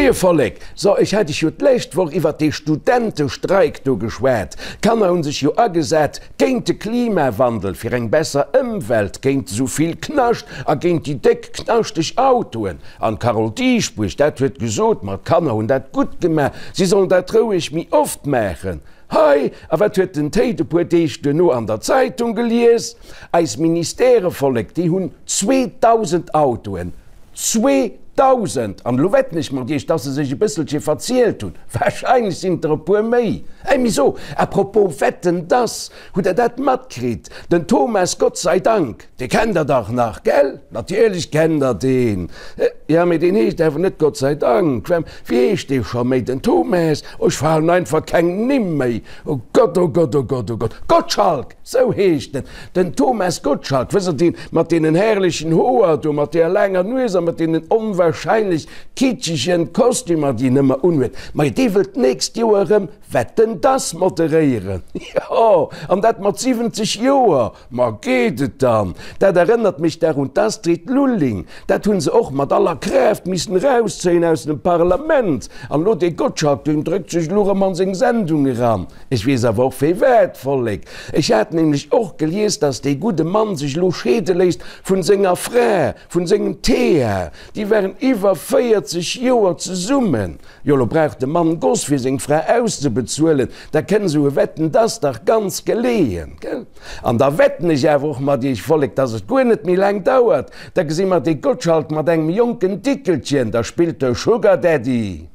Moie Vollek! So, ech hat iech jo d'lescht Woch iwwert dee Studentestreik do geschwat. D'Kanner hunn sech jo agesat géint de Klimawandel, fir eng besser Ëmwelt, géint esou vill Knascht a géint déi déck knaschteg Autoen. An d'Carole Dieschbourg, dat huet gesot, ma d'Kanner hunn dat gutt gemaach, si sollen dat roueg méi oft maachen. Hei! A wat huet den Théid e puer Deeg duerno an der Zeitung gelies? Eis Ministèrevollek, déi hunn 2.000 Autoen. 2.000! An elo wetten ech mat Iech, dass se sech e bësselche verzielt hunn. Wahrscheinlech sinn et der e puer méi. Ey, mee so, à propos wetten, dass, hutt Der dat matkritt? Den Thomas Gottseidank, dee kennt Der dach nach, gell? Natierlech kennt Der deen. Jo, mee deen heescht awer net Gottseidank. Wéi heescht dee scho méi? Den Thomas? Oh, ech falen einfach keng Nimm méi. Oh Gott, oh Gott, oh Gott, oh Gott. Gottschalk! Sou heescht en, den Thomas Gottschalk, wësst Der, deen mat deenen herrlechen Hoer do, mat deeër laanger Nues a mat deenen onwahrscheinlech kitschegen Kostümer, déi en ëmmer unhuet. Majo, dee wëllt d'nächst Joer erëm Wetten, dass moderéieren. Jo, an dat mat 70 Joer! Ma geet et dann? Dat erënnert mech dach un d'Astrid Lulling. Dat hu se och mat aller Kraaft missen erauszéien aus dem Parlament. An elo dee Gottschalk, deen dréckt sech elo erëm an seng Sendung eran. Ech weess awer och firwat, Vollek. Ech hat nämlech och gelies, dass dee gudde Mann sech elo scheede léisst vun senger Fra, vun sengem Thea. Déi waren iwwer 40 Joer zesummen. Jo, elo brauch de Mann Goss fir seng Fra auszebezuelen. Da kënn esou e Wetten dass dach ganz geleeën, gell? An da wetten ech awer och mat iech, Vollek, dass et guer net méi laang dauert, da gesi mer dee Gottschalk mat engem jonken Dickelchen, da spillt de Sugar Daddy.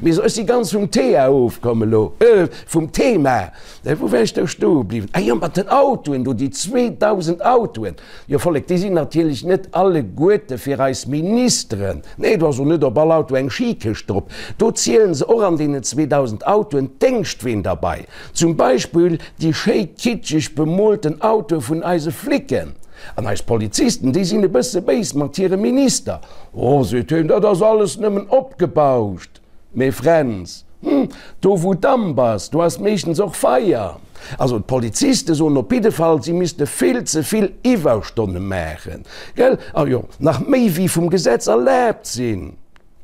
Mee so, ech si ganz vum Thea ofkomm elo, euh, vum Thema. Wou war ech do stoe bliwwen? Ah jo, mat den Autoen do, déi 2.000 Autoen. Jo, Vollek, déi sinn natierlech net alleguerte fir eis Ministeren. Nee, do ass och net op all Auto eng Skikëscht drop. Do zielen se och an deenen 2.000 Autoen d'Déngschtween derbei. Zum Beispill déi schéi kitscheg bemoolten Autoe vun eise Flicken. An eis Polizisten, déi sinn e bësse béis mat hirem Minister. Oh, seet hien, dat ass alles nëmmen opgebauscht. Mee Fränz, hm, do wou Damp ass, do ass meeschtens och Feier. Also d'Poliziste soen op jidde Fall, si misste vill ze vill Iwwerstonne maachen, gell? A jo, nach méi wéi vum Gesetz erlaabt sinn.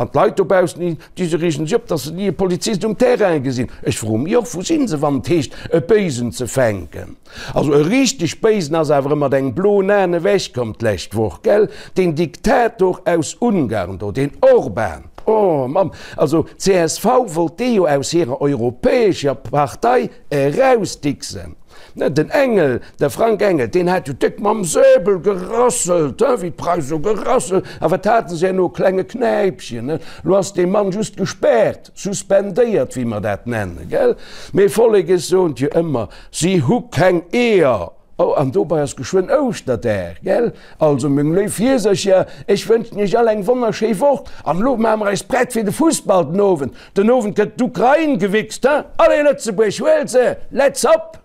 An d'Leit dobaussen, déi se reegen sech op, datt se ni e Polizist um Terrain gesinn. Ech froe mech och, wou sinn se, wann et heescht, e Béisen ze fänken? Also e richteg Béisen ass awer erëm mat engem bloen Aen ewechkomm d'lescht Woch, gell? Deen Diktator aus Ungarn do, deen Orban. Oh Mamm, also csv wollt dee jo aus hirer europäescher Partei erausdixen. Den Engel, de Frank Engel, deen hat jo déck mam Säbel gerasselt, he, wéi d'Preise sou gerasselt. A wat haten se herno? E klenge Knäipchen, he. Lo ass dee Mann just gespaart, suspendéiert, wéi mer dat nennen, gell? Mee Vollek, ech soen et jo ëmmer, si hu keng Eeër! Oh, an dobei ass geschwënn Ouschterdag, gell? Also, meng léif Hiesercher, ech wënschen iech all eng wonnerschéi Woch. An elo maache mer eis prett fir de Fussball den Owend. Den Owend gëtt d'Ukrain gewichst, he? Allez Lëtzebuerg, huel se! Let's up!